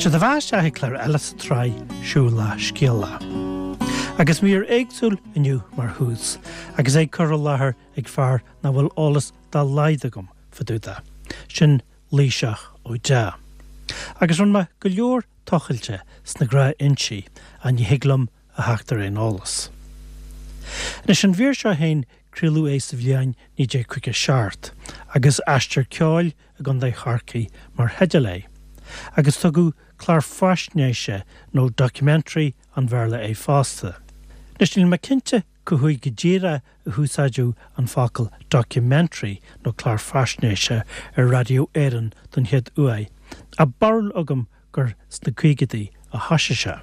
Sé do bheatha isteach ag clár eile sa tsraith Siúlach Scéalach. Agus mír éagsúil inniu mar thús, agus é curtha i láthair ag fear nach bhfuil eolas dá laghad agam fá dtaobh de, sin Laoighseach Ó Deá. Agus rinne mé go leor tochailte sna gnáthfhoinsí ach ní thig liom a theacht ar aon eolas. Anois an mhír seo féin craoladh é sa bhliain 1957 agus Aistear Ceoil i gContae Chorcaí mar theideal air, agus tugadh clár faisnéise nó documentary an Bhéarla air fosta. Anois níl mé cinnte cá huair go díreach a húsáideadh an focal documentary nó clár faisnéise ar Raidió Éireann don chéad uair, ach barúil agam gur sna caogaidí a thoisigh sé.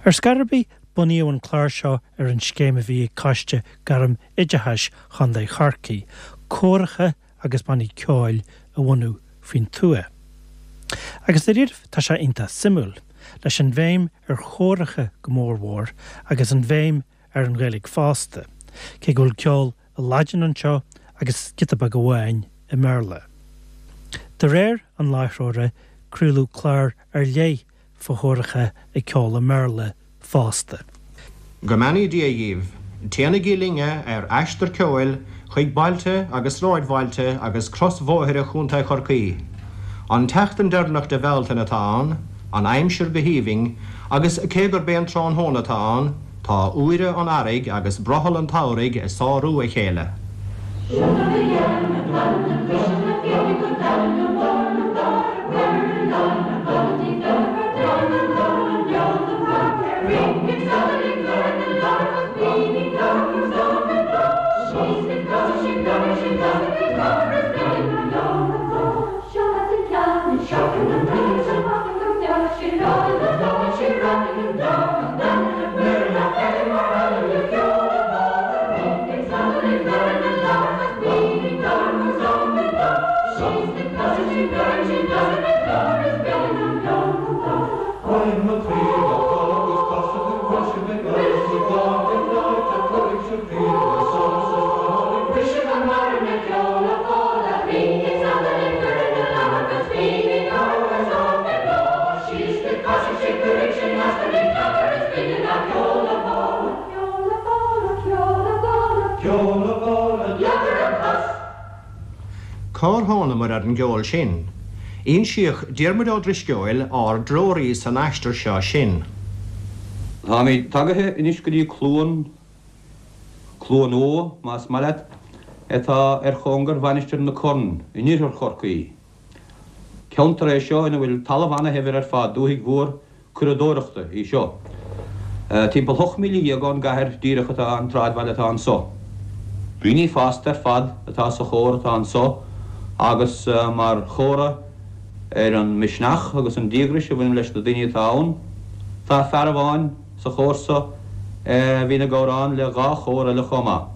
Ar scor ar bith, bunaíodh an clár seo ar an scéim a bhí ag Coiste Gairm Oideachais Chontae Chorcaí, córacha agus bannaí ceoil a bhunú faoin tuath. Agus dáiríribh tá sé iontach suimiúil, leis an bhéim ar chóracha go mór mhór agus an bhéim ar an Ghaeilge fosta, cé go bhfuil ceol i Laidin anseo agus giota beag amháin i mBéarla. De réir an láithreora, craoladh clár ar leith fá chóracha ag ceol i mBéarla fosta. Go mbeannaí Dia dhíbh. Téanaigí linne ar aistear ceoil chuig bailte agus sráidbhailte agus crosbhóithre Chontae Chorcaí. An tseachtain deireanach de Bhealtaine atá ann, an aimsir go haoibhinn, agus cé gurb é an tráthnóna atá ann, tá úire an earraigh agus brothall an tsamhraidh ag sárú a chéile. Cár thánamair ar an gceol sin? Insíodh Diarmuid Ó Drisceoil, ár dtreoraí san aistear seo, sinn. Táimid tagaithe anois go dtí Cluain, Cluain Umha, más maith leat, atá ar chóngar Mhainistir na Corn in oirthear Chorcaí. Ceantar é seo ina bhfuil talamh ana-shaibhir ar fad, dúthaigh mhór curadóireachta í seo. Timpeall 18 míle ón gcathair díreach atá an tsráidbhaile atá anso. Daoine fásta ar fad atá sa chór atá anso agus mar chomhartha ar an misneach agus an díograis a bhaineann leis na daoine atá ann, tá fear amháin sa chór so a bhíonn ag amhrán le dhá chór eile chomh maith.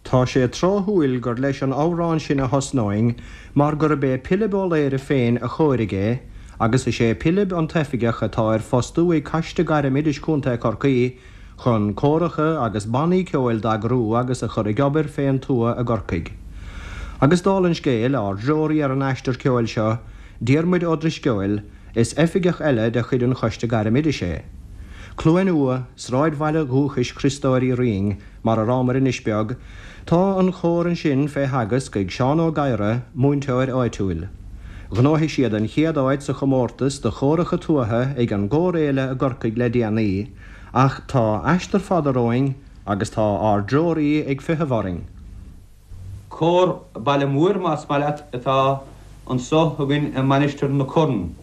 Tá sé tráthúil gur leis an amhrán sin a thosnóinn mar gurb é Pilib Ó Laoire féin a chóirigh é agus is é Pilib an t-oifigeach atá ar fostú ag Coiste Gairm Oideachais Contae Chorcaí chun córacha agus bannaí ceoil d'eagrú agus a chur ag obair fén tuath i gCorcaigh. Agus dála an scéil, ár dtreoraí ar an aistear ceoil seo, Diarmuid Ó Drisceoil, is oifigeach eile de chuid an Choiste Gairm Oideachais é. Cluain Umha, sráidbhaile dhúchais Chriostóir Uí Rinn, Mar a rabhamar anois beag, tá an chór ansin fé theagasc ag Seán Ó Gadhra, múinteoir áitiúil. Ghnóthaigh siad an chéad áit sa chomórtas do chóracha tuaithe ag an gCórfhéile i gCorcaigh le déanaí, ach tá aistear fada romhainn agus tá ár dtreoraí ag feitheamh orainn. Cór baile mhóir, más maith leat, atá anso againn i Mainistir na Corn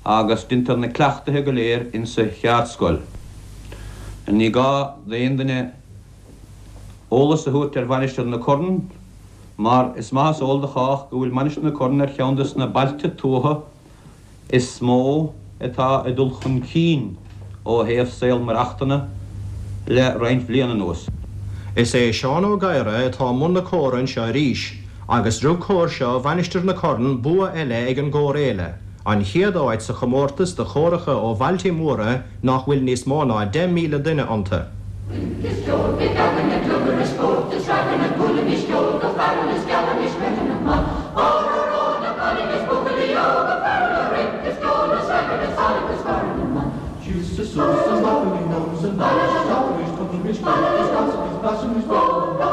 agus deintear na cleachtaithe go léir insa cheardscoil. Ní gá d'aon duine eolas a thabhairt ar Mhainistir na Corn mar is maith is eol do chách go bhfuil Mainistir na Corn ar cheann des na bailte tuaithe is mó atá ag dul chun cinn ó thaobh saol maireachtana le roinnt bhliain anuas. Is é Seán Ó Gadhra atá i mbun na córa anseo arís, agus rug cór seo Mhainistir na Corn bua eile ag an gCórfhéile, an chéad áit sa chomórtas do chóracha ó bhailte móra nach bhfuil níos mó ná 10,000 duine iontu. Rince is ceol, bíodh againne glugair is spórt is ragairne, buailimis ceol go fearúil is gealaimis rithim maith. Óró ró na cailíní is buachaillí óga fearúla, rince is ceol. suas an bhaclainn anuas an bealach isteach arís tugaimis cuairt is casaimis blaisimís béile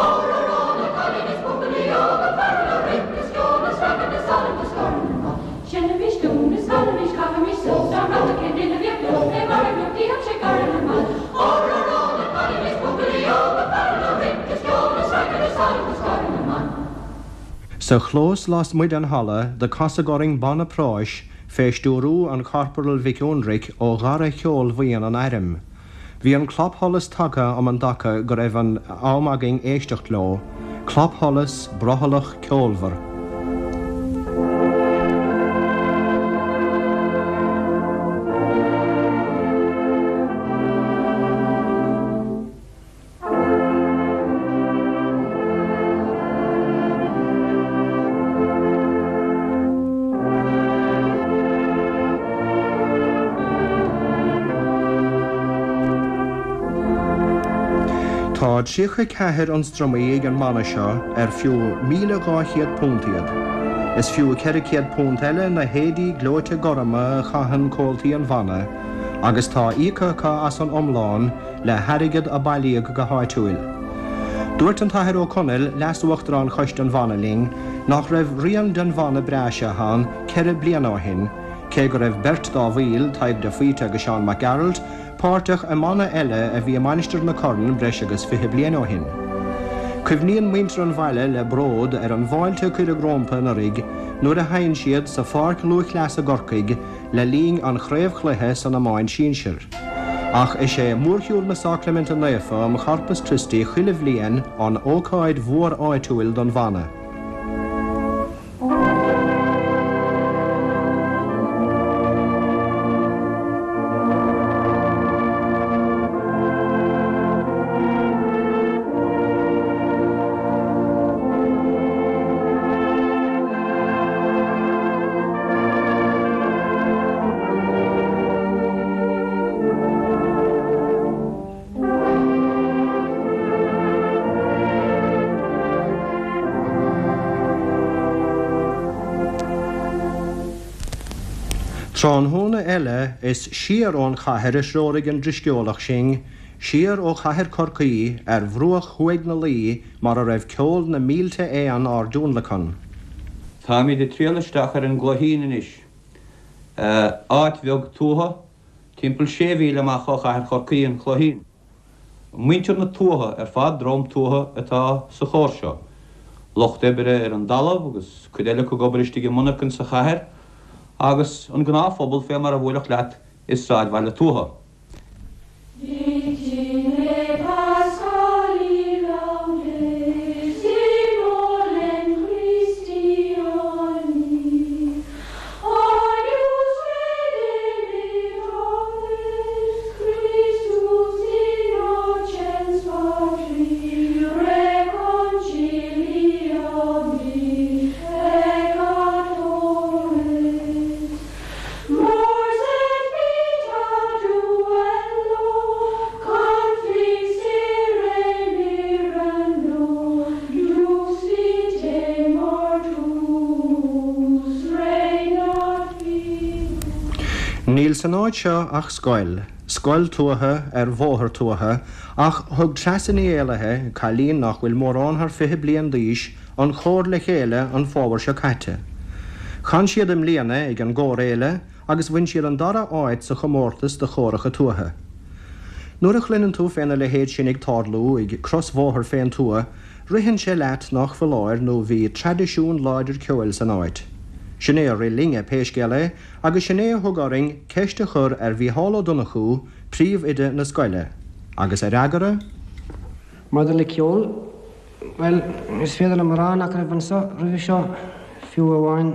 Ór arán na cailíní is buachaillí óga faire leo rith is ceol is ragairne is salann is scornadh na Seinnimis dún is canaimis caithimis suas ár mbeatha cén duine a bheadh leo fé mar a bheadh sé gar ina mbeatha Ór arán na cailíní is buachaillí óga faire leo rith is ceol is ragairne is salann is scornadh na Sa chlós lasmuigh den halla do casadh orainn banna práis fé stiúrú an Chorporail Mhic Fhionnraic ó dhara cheolbhuíon an Airm. Bhí an clapsholas tagtha um an dtaca go raibh an am againn éisteacht leo, clapsholas brothallach ceolmhar. Tá 34 ionstraimí ag an mbanna seo ar fiú £1,200 iad. Is fiú £400 eile na héadaí gleoite gorma a chaitheann comhaltaí an bhanna agus tá íoctha acu as an iomlán le hairgead a bailíodh go háitiúil. Dúirt an tAthair Ó Conaill, Leas-Uachtarán Choiste an Bhanna linn, nach raibh rian den bhanna breá seo ann 4 bliana ó shin, cé go raibh beirt dá bhaill, Tadhg de Faoite agus Seán Mac Gearailt, páirteach i mbanna eile a bhí i Mainistir na Corann breis agus 20 bliain ó shin. Cuimhníonn muintir an bhaile le bród ar an bhfáilte a cuireadh rómpa anuraidh nuair a sheinn siad sa Pháirc Lúthchleasa i gCorcaigh le linn an chraobhchluiche san iomáint sinsir. Ach is é Mórshiúl na Sacraiminte Naofa um Chorpus Christi chuile bhliain an ócáid mhór áitiúil don bhanna. Tráthnóna eile is siar ón chathair a threoraigh an drisceolach sinn, siar ó chathair Chorcaí ar bhruach thuaidh na Laoi mar a raibh ceol na mílte éan ár dtionlacan. Táimid ag triall isteach ar an gCloichín anois. Áit bheag tuaithe, timpeall sé mhíle amach ó chathair Chorcaí, an Cloichín. Muintir na tuaithe ar fad, dream tuaithe atá sa chór seo. Lucht oibre ar an dtalamh agus cuid eile acu ag obair istigh i monarchain sa chathair agus an gnáthphobal fé mar a bhuailfeadh leat i sráidbhaile tuaithe. Mors et vita duello, conflixere mirando, dux vitae mortuus regnat vivus. Níl san áit seo ach scoil, scoil tuaithe ar bhóthar tuaithe, ach thug Treasa Ní Éallaithe, cailín nach bhfuil mórán thar 20 bliain d'aois, an chór le chéile an fómhar seo caite. Chan siad i mbliana ag an gCórfhéile agus bhain siad an dara áit sa chomórtas do chóracha tuaithe. Nuair a chluineann tú féna leithéid sin ag tarlú ag crosbhóthar fén tuath, ritheann sé leat nách foláir nó bhí traidisiún láidir ceoil san áit. Sin é a rith linne, pé scéal é, agus sin é a thug orainn ceist a chur ar Mhícheál Ó Donnchú, príomhoide na scoile. Agus a fhreagra? Maidir le ceol, Bhuel, is féidir liom a rá nach raibh anseo roimhe seo fiú amháin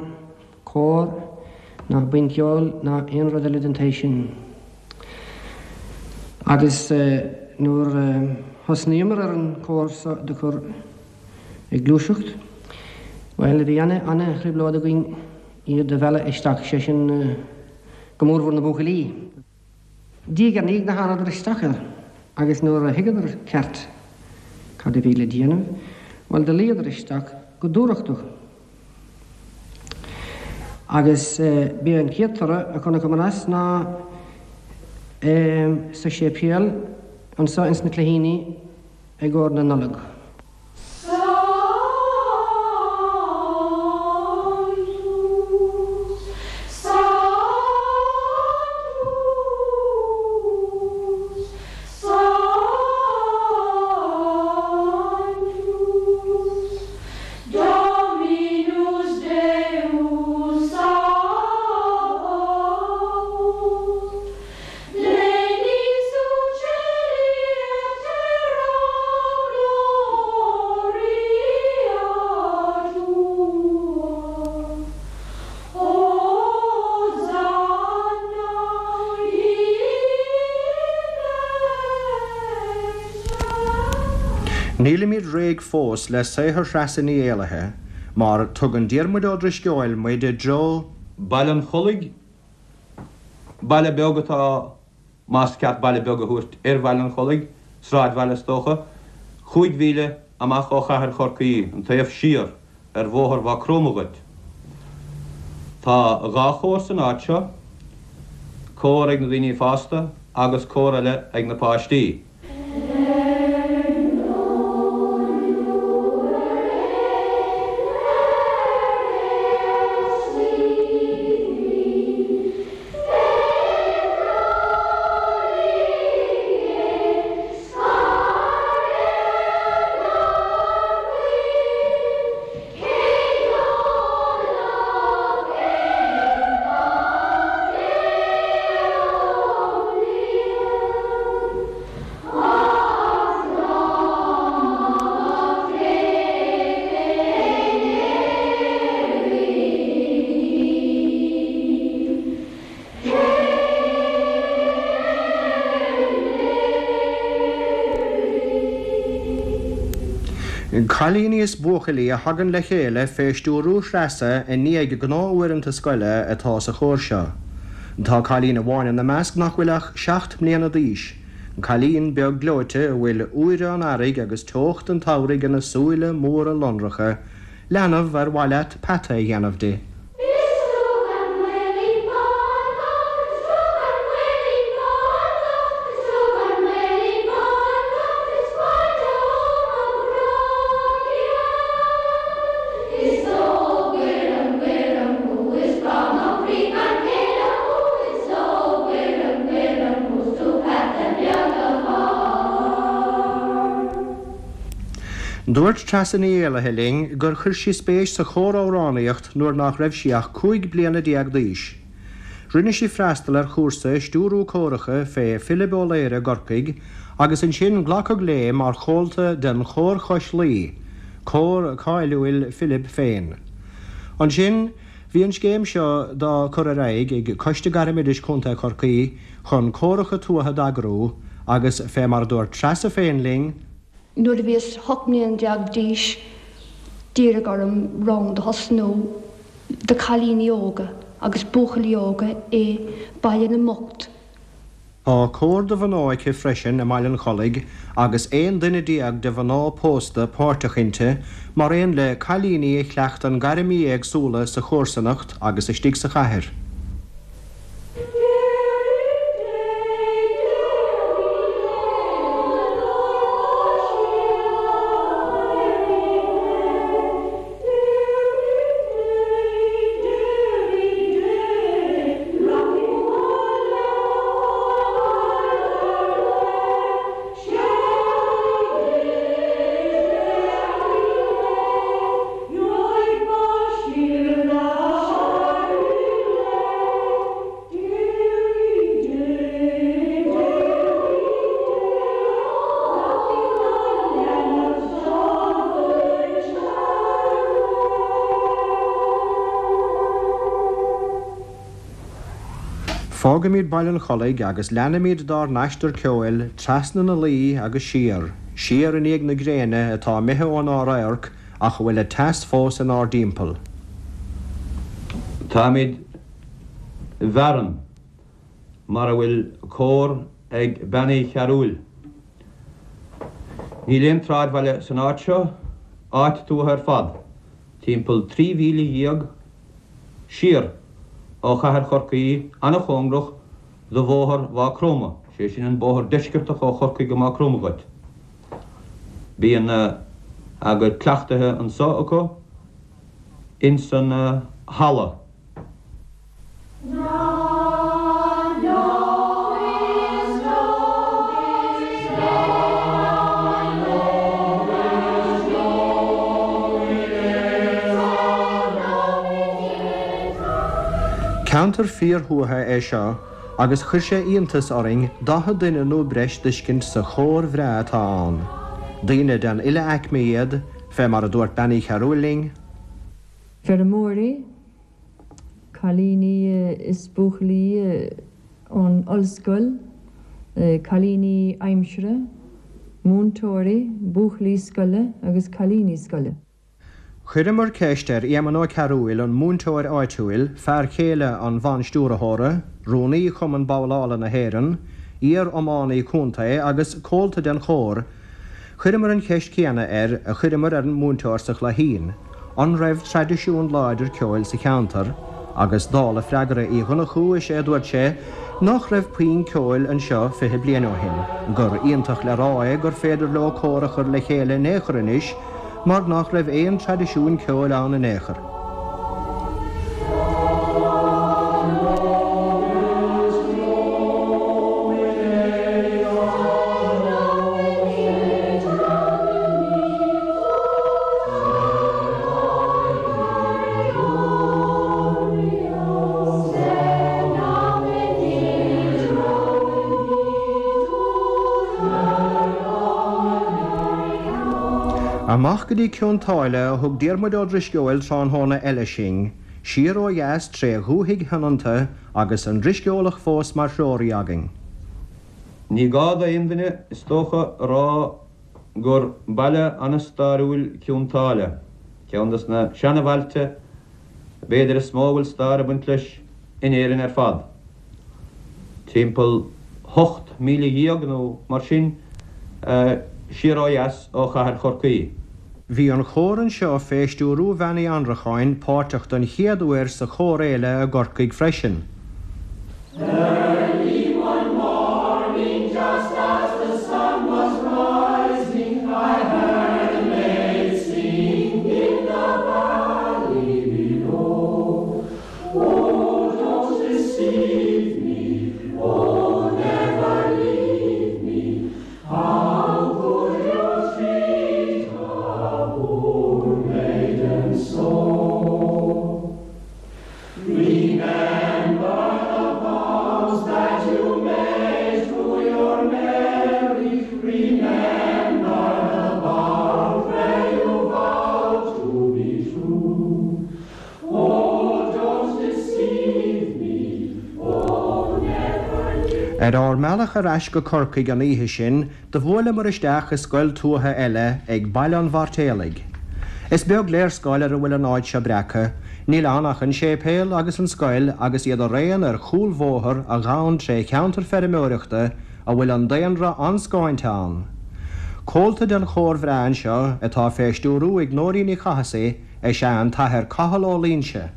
cór ná buíon ceoil ná aon rud eile den tsaghas sin. Agus nuair a thosnaíomar ar an cór seo do chur ag gluaiseacht, bhuel, bhí ana-thrioblóid againn iad a mhealladh isteach, sé sin go mórmhór na buachaillí. Diaidh ar ndiaidh do thánadar isteach air agus nuair a thuigeadar ceart cad a bhí le déanamh, bhuel do luíodar isteach go dúthrachtach. Agus b'é an chéad toradh a chonaiceamar as ná. Sa séipéal anso ins na Cloichíní i gcomhair na Nollag. Nílimid réidh fós le saothar Threasa Ní Éallaithe, mar tugann Diarmuid Ó Drisceoil muid i dtreo. Baile an Chollaigh, baile beag atá más ceart baile beag a thabhairt ar Bhaile an Chollaigh, sráidbhaile is dócha, chúig mhíle amach ó chathair Chorcaí, an taobh siar ar bhóthar Mhaigh Chromtha dhuit. Tá dhá chór san áit seo, cór ag na daoine fásta agus cór eile ag na páistí. Cailíní is buachaillí a thagann le chéile fé stiúrú Threasa i ndiaidh gnáth-uaireanta scoile atá sa chór seo. Tá cailín amháin ina measc nach bhfuil ach 7 mbliana d'aois. Cailín beag gleoite a bhfuil úire an earraigh agus teocht an tsamhraidh ina súile móra lonracha, leanbh ar mhaith leat peata a dhéanamh di. Dúirt Treasa Ní Éallaithe linn gur chuir sí spéis sa chór-amhránaíocht nuair nach raibh sí ach 15 bliana d'aois. Rinne sí freastal ar chúrsa i stiúrú córacha fé Philib Ó Laoire i gCorcaigh agus ansin glacadh léi mar chomhalta den Chór Chois Laoi, cór cáiliúil Philib féin. Ansin, Bhí an scéim seo dá cur ar aghaidh ag Coiste Gairmoideachais Chontae Chorcaí chun córacha tuaithe d'eagrú agus, fé mar a dúirt Treasa féin linn, Nuair a bhíos 18 mbliana d'aois d'iarradh orm rang do thosnú do cailíní óga agus buachaillí óga i Baile na mBocht. Tá cór do mhná aici freisin i mBaile an Chollaigh agus 11 duine de mhná pósta páirteach inti, mar aon le cailíní a chleachtann gairmí éagsúla sa chomharsanacht agus istigh sa chathair. Fágaimid Baile an Chollaigh agus leanaimid dár n-aistear ceoil trasna na Laoi agus siar, siar i ndiaidh na gréine atá imithe ónár radharc ach a bhfuil a teas fós inár dtimpeall. Táimid i bhFearann, mar a bhfuil cór ag Bean Uí Chearúil. Níl aon tsráidbhaile san áit seo, áit tuaithe ar fad, timpeall 13 mhíle siar ó chathair Chorcaí, an-chóngarach. do bhóthar Mhaigh Chromtha, sé sin an bóthar deisceartach ó Chorcaigh go Maigh Chromtha dhuit. Bíonn a gcuid cleachtaithe anso acu ins an halla. Ceantar fíorthuaithe é seo agus chuir sé iontas orainn 40 duine nó breis d'fheiscint sa chór bhreá atá ann. Daoine den uile aicme iad, fé mar a dúirt Bean Uí Chearúil linn. Feirmeoirí, cailíní is buachaillí ón ollscoil, cailíní aimsire, múinteoirí, buachaillí scoile agus cailíní scoile. Chuireamar ceist ar Éamonn Ó Cearúil, an múinteoir áitiúil, fear chéile an bhanstiúrthóra, rúnaí Chumann Babhlála na hÉireann, iar-iománaí contae agus comhalta den chór, Chuireamar an cheist chéanna air a chuireamar ar an múinteoir sa Chloichín, an raibh traidisiún láidir ceoil sa cheantar, agus dála freagra Uí Dhonnchú is é a dúirt sé nach raibh puinn ceoil anseo 20 bliain ó shin, gur iontach le rá é gur féidir leo cór a chur le chéile in aon chor anois mar nach raibh aon traidisiún ceoil ann in aon chor. Amach go dtí Cionn tSáile a thug Diarmuid Ó Drisceoil tráthnóna eile sinn, siar ó dheas tré dhúthaigh shoineanta agus an Drisceolach fós mar threoraí againn. Ní gá d'aon duine, is dócha, a rá gur baile an-stairiúil Cionn tSáile, ceann des na seana-bhailte b'fhéidir is mó a bhfuil stair ag baint leis in Éirinn ar fad. Timpeall 18,000 nó mar sin siar ó dheas ó chathair Chorcaí. Bhí an chór anseo fé stiúrú Bhean Uí Annracháin páirteach don chéad uair sa Chórfhéile i gCorcaigh freisin. Early one morning just as the sun was rising I heard a maid sing in the valley below Oh don't deceive me, oh never leave me How could you treat a poor maiden so? Remember the vows that you made to your Mary Remember the vow where you vowed to be true Oh don't deceive me, oh never leave Ar ár mbealach ar ais go Corcaigh an oíche sin, do bhuaileamar isteach i scoil tuaithe eile ag Baile an Mhairtéalaigh. Is beag léarscáil ar a bhfuil an áit seo breactha, níl ann ach an séipéal agus an scoil agus iad araon ar chúlbhóthar a ghabhann tré cheantar feirmeoireachta a bhfuil an daonra an-scáinte ann. Comhalta den chór bhreá anseo, atá fé stiúrú ag Nóirín Ní Chathasaigh, is ea an tAthair Cathal Ó Loingsigh.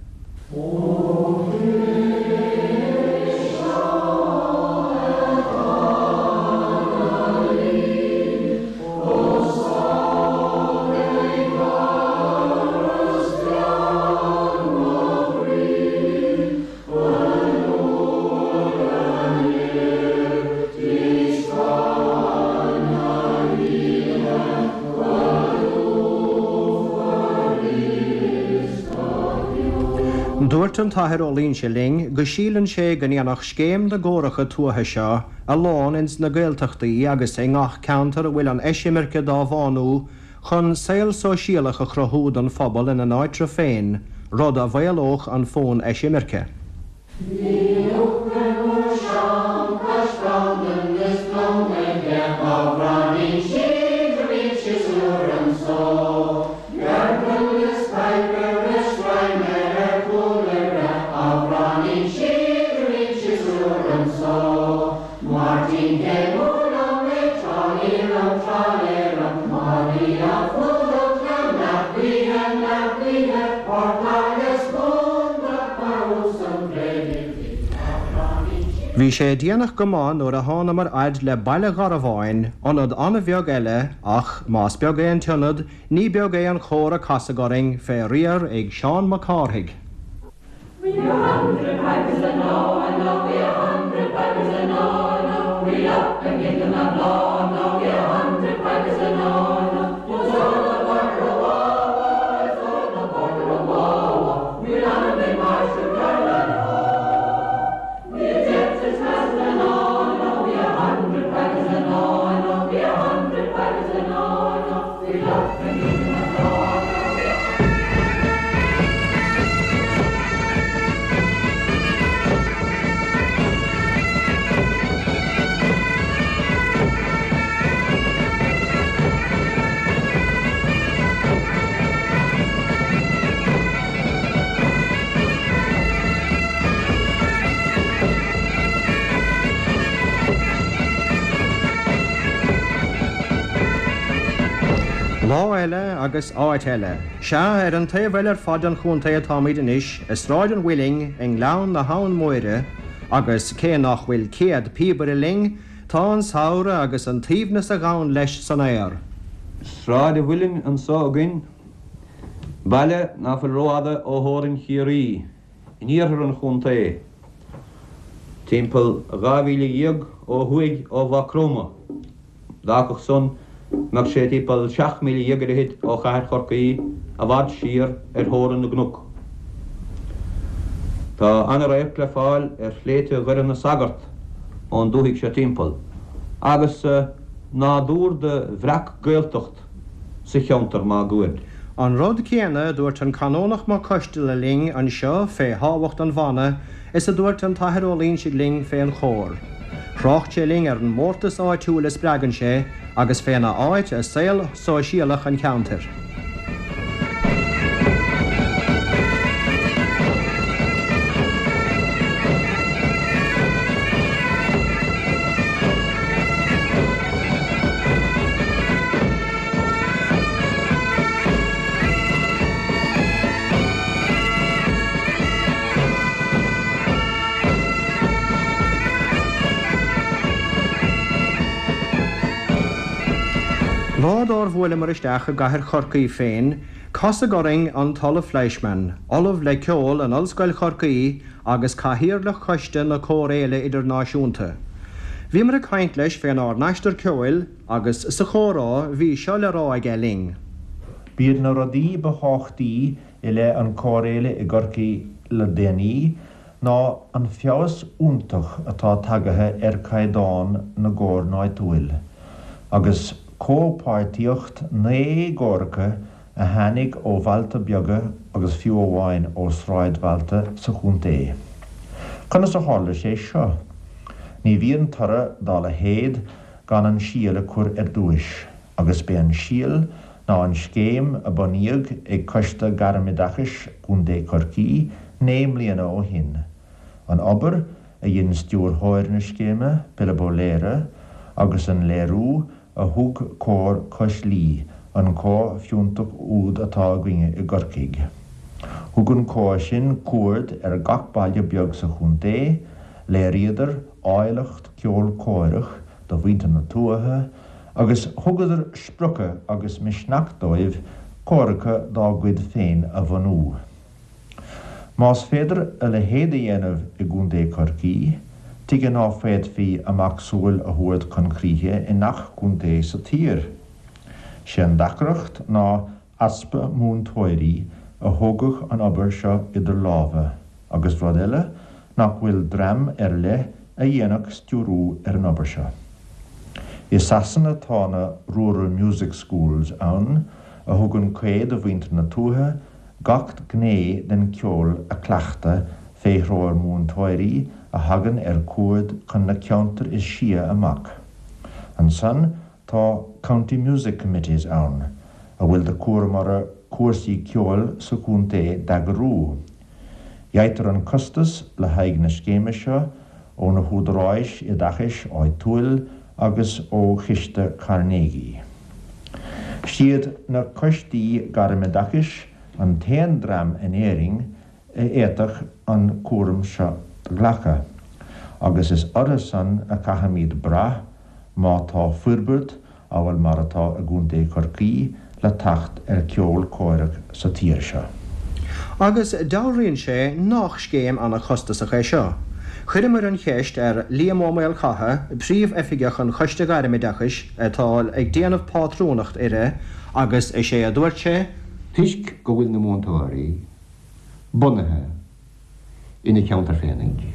Dúirt an tAthair Ó Loingsigh linn go síleann sé go ndéanfadh scéim na gcóracha tuaithe seo a lán ins na Gaeltachtaí agus i ngach ceantar a bhfuil an eisimirce dá bhánú chun saol sóisialach a chruthú don phobal ina n-áitreabh féin, rud a mhaolódh an fonn eisimirce. Bhí sé déanach go maith nuair a thánamar fhad le Baile Gharbháin, ionad an-bheag eile ach, más beag é an t-ionad, ní beag é an chór a casadh orainn, fé riar ag Seán Mac Cárthaigh. Lá eile agus áit eile. Sea, ar an taobh eile ar fad den chontae atáimid anois, i Sráid an Mhuilinn, i nGleann na hAbhann Móire, agus cé nach bhfuil céad píobaire linn, tá an samhradh agus an t-aoibhneas a ghabhann leis san aer. Sráid an Mhuilinn anso againn. Baile ná fuil rófhada ó theorainn Chiarraí, in iarthar an chontae, timpeall 12 mhíle ó thuaidh ó Mhaigh Chromtha. D'fhágfadh san go mbeadh sé timpeall 17 míle ar fhichid ó chathair Chorcaí, i bhfad siar ar theorainn na gcnoc. Tá ana-radharc le fáil ar shléibhte Dhoire na Sagart ón dúthaigh seo timpeall, agus nádúr de bhreac-Ghaeltacht sa cheantar máguaird. An rud céanna a dúirt an Canónach Mac Coisteala linn anseo fé thábhacht an bhanna is a dúirt an tAthair Ó Loingsigh linn fé an chór. Thrácht sé linn ar an mórtas áitiúil a spreagann sé agus féna áit i saol sóisialach an cheantair. Lá dár bhuaileamar isteach i gcathair Chorcaí féin, casadh orainn an tOllamh Fleischmann, Ollamh le Ceol in Ollscoil Chorcaí agus Cathaoirleach Choiste na Cór-Fhéile Idirnáisiúnta. Bhíomar ag caint leis fénár n-aistear ceoil agus sa chomhrá bhí seo le rá aige linn. B'iad na rudaí ba thábhachtaí i leith an Cór-Fhéile i gCorcaigh le déanaí ná an feabhas iontach atá tagaithe ar caighdeán na gcór náitiúil, agus comhpháirtíocht 9 gcóracha a tháinig ó bhailte beaga agus fiú amháin ó sráidbhailte sa chontae. Conas a tharla sé seo? Ní bhíonn toradh dá leithéid gan an síol a chur ar dtúis, agus b'é an síol ná an scéim a bunaíodh ag Coiste Gairmoideachais Chontae Chorcaí 9 mbliana ó shin. An obair a dhein stiúrthóir na scéime, Pilib Ó Laoire, agus an léiriú a thug Cór Cois Laoi, an cór fiúntach úd atá againne i gCorcaigh. Thug an cór sin cuaird ar gach baile beag sa chontae, léiríodar áilleacht ceol córach do mhuintir na tuaithe agus thugadar spriocadh agus misneach dóibh córacha dá gcuid féin a bhunú. Más féidir a leithéid a dhéanamh i gContae Chorcaí, tuige ná féadfaí a macsamhail a thabhairt chun críche i ngach contae sa tír? Sé an deacracht ná easpa múinteoirí a thógfadh an obair seo idir lámha, agus rud eile, nach bhfuil dream ar leith a dhéanfadh stiúrú ar an obair seo. I Sasana tá na Rural Music Schools ann a thugann caoi do mhuintir na tuaithe gach gné den cheol a chleachtadh fé threoir múinteoirí a thagann ar cuaird chun na ceantar is sia amach. Ansan tá County Music Committees ann, a bhfuil de chúram orthu cúrsaí ceoil sa chontae d'eagrú. Gheibhtear an costas le haghaidh na scéime seo ó na húdaráis oideachais áitiúil agus ó Chiste Carnegie. Siad na coistí gairmoideachais an t-aon dream in Éirinn a fhéadfadh an cúram seo do ghlacadh. Agus is orthu san a caithfimíd brath má tá forbairt amhail mar atá i gContae Chorcaí le teacht ar cheol córach sa tír seo. Agus dealraíonn sé nách scéim ana-chostasach é seo. Chuireamar an cheist ar Liam Ó Maolchatha, Príomh-Oifigeach an Choiste Ghairmoideachais atá ag déanamh pátrúnacht uirthi, agus is é a dúirt sé, Toisc go bhfuil na múinteoirí bunaithe ina cheantar féinig.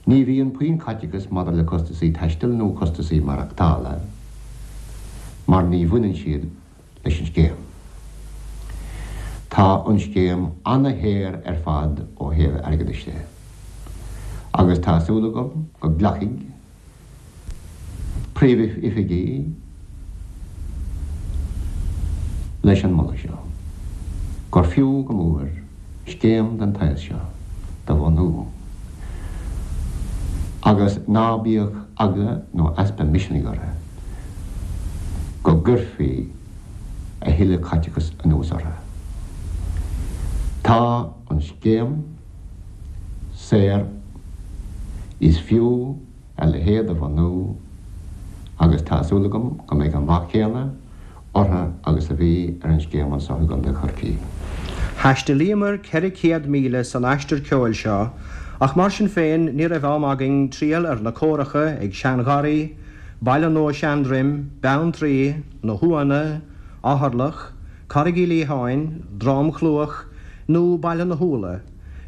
Ní bhíonn puinn caiteachas maidir le costasaí taistil nó costasaí maireachtála mar ní bhaineann siad leis an scéim. Tá an scéim ana-shaor ar fad ó thaobh airgeadais de agus tá súil agam go nglacfaidh Príomhoifigigh leis an moladh seo, gur fiú go mór scéim den tsaghas seo do bhunú agus ná bíodh eagla nó easpa misnigh orthu go gcuirfí a thuilleadh caiteachais anuas orthu. Tá an scéim saor, is fiú a leithéid a bhunú agus tá súil agam go mbeidh an rath céanna orthu agus a bhí ar an scéim anso i gContae Chorcaí. Thaistealaíomar 400 míle san aistear ceoil seo ach mar sin féin ní raibh am againn triall ar na córacha ag Seangharraí, Baile Nua Seandroim, Beanntraí, Na hUanna, Eatharlach, Carraig Uí Liatháin, Drom Chluach nó Baile na hÚlla.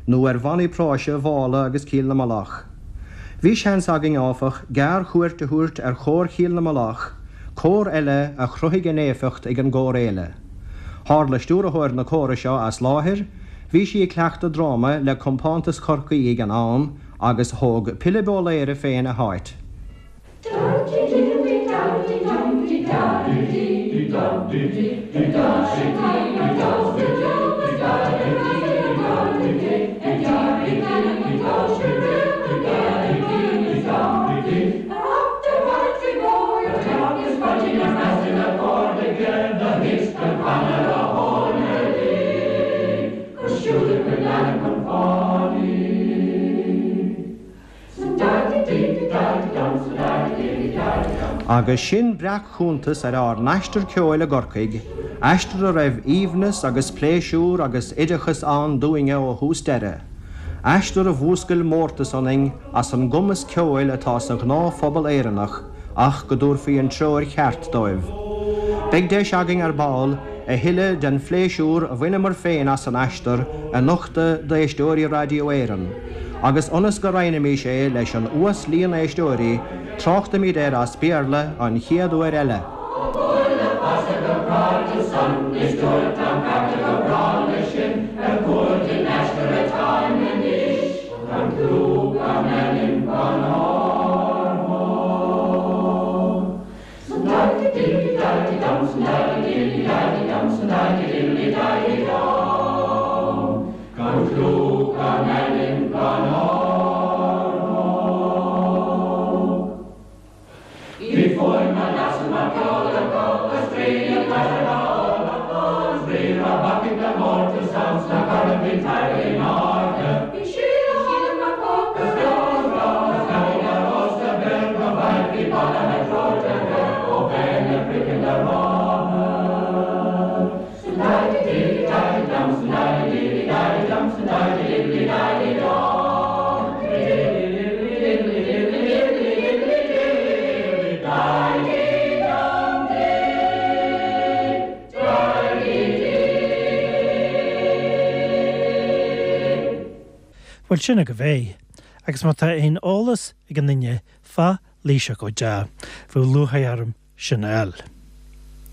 nó ar bhannaí práise Mhála agus Cill na Mullach. Bhí seans againn, áfach, gearr-chuairt a thabhairt ar Chór Chill na Mullach, cór eile a chruthaigh a n-éifeacht ag an gcórfhéile. Tharla stiúrthóir na córa seo as láthair, bhí sí ag cleachtadh dráma le Compántas Chorcaí ag an am, agus thóg Pilib Ó Laoire féin a háit. Agus sin breac-chuntas ar ár n-aistear ceoil i gCorcaigh, aistear a raibh aoibhneas agus pléisiúr agus oideachas ann dúinne ó thús deireadh, aistear a mhúscail mórtas ionainn as an gcumas ceoil atá sa ghnáthphobal Éireannach ach go dtabharfaí an treoir cheart dóibh. Beidh deis againn ar ball a thuilleadh den phléisiúr a bhaineamar féin as an aistear a nochtadh d'éisteoirí Raidió Éireann. Agus ionas go roinnfimís é leis an uas-líon éisteoirí, tráchtaimid air as Béarla an chéad uair eile. Bhuel, sin agaibh é. Agus má tá aon eolas ag aon duine fá Laoighseach Ó Deá, bheadh lúcháir orm sin a fháil.